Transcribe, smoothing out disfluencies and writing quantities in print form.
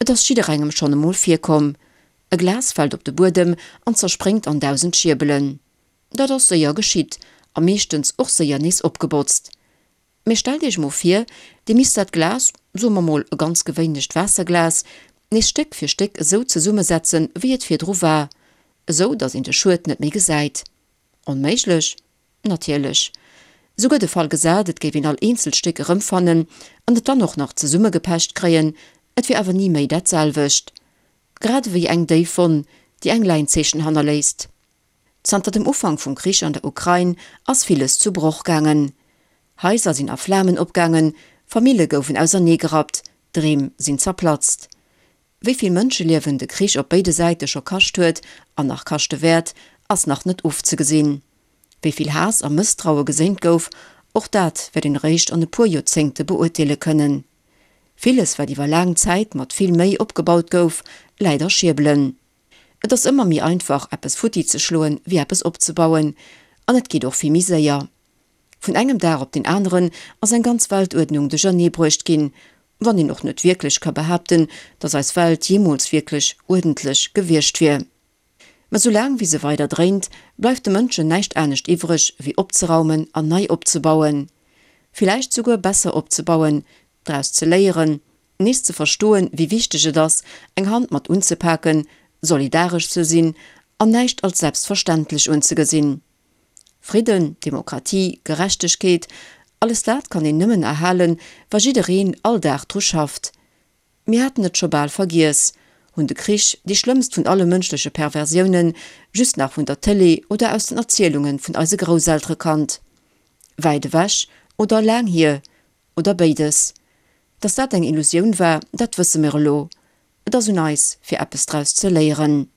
Et ass jidderengem schonn emol virkomm, E Glas fält op de Buedem an zerspréngt an 1000 Schierbelen. Dat ass séier geschitt a meeschtens och séier nees opgebotzt. Mee stellt iech mol vir, dir misst dat Glas, soe mer mol e ganz gewéinlecht Waasserglas, nees Stéck fir Stéck esou zesummesetzen, wéi et virdru war, esou datt een de Schued net méi gesäit. Onméiglech? Natierlech. Souguer de Fall gesat, et géif een all eenzelt Stéck erëmfannen an et dann och nach zesummegepecht kréien, et wier awer ni méi dat selwecht. Grad ewéi eng déif Wonn, déi eng Läinzeechen hannerléisst. Zanter dem Ufank vum Krich an der Ukrain ass villes zu Broch gaangen. Haiser sinn a Flamen opgaangen, Famille goufen auserneegerappt, Dreem sinn zerplatzt. Wéi vill Mënscheliewen de Krich op béide Säite scho kascht huet an nach kaschte wäert, ass nach net ofzegesinn. Wéi vill Haass a Mësstraue geséint gouf, och dat wäert een eréischt an e puer Joerzéngte beurteele kënnen. Villes, wat iwwer laang Zäit mat vill Méi opgebaut gouf, läit a Schierbelen. Et ass ëmmer méi einfach eppes futti ze schloen wéi eppes opzebauen, an et geet och vill méi séier. Vun engem Dag op deen aneren ass eng ganz Weltuerdnung duerchernee bruecht ginn, wann een och net wierklech ka behaapten, datt eis Welt jeemools wierklech uerdentlech gewiescht wier. Mä soulaang wéi se weider dréint, bleift de Mënschen näischt anescht iwwreg wéi opzeraumen an nei opzebauen. Villäicht souguer besser opzebauen, draus ze léieren, Nees ze verstoen, wéi wichteg et ass, eng Hand mat unzepaken, solidaresch ze sinn an näischt als selbstverständlech unzegesinn. Fridden, Demokratie, Gerechtegkeet, alles dat kann een nëmmen erhalen, wa jiddereen all Dag dru schafft. Mir haten et scho bal vergiess, hunn de Krich, déi schlëmmst vun alle mënschleche Perversiounen, just nach vun der Tëlee oder aus den Erzielunge vun eise Grousseltere kannt. Wäit ewech oder laang hier, Oder béides. Dass dat eng Illusioun war, dat wësse mir elo. Et ass un eis, fir eppes draus ze léieren.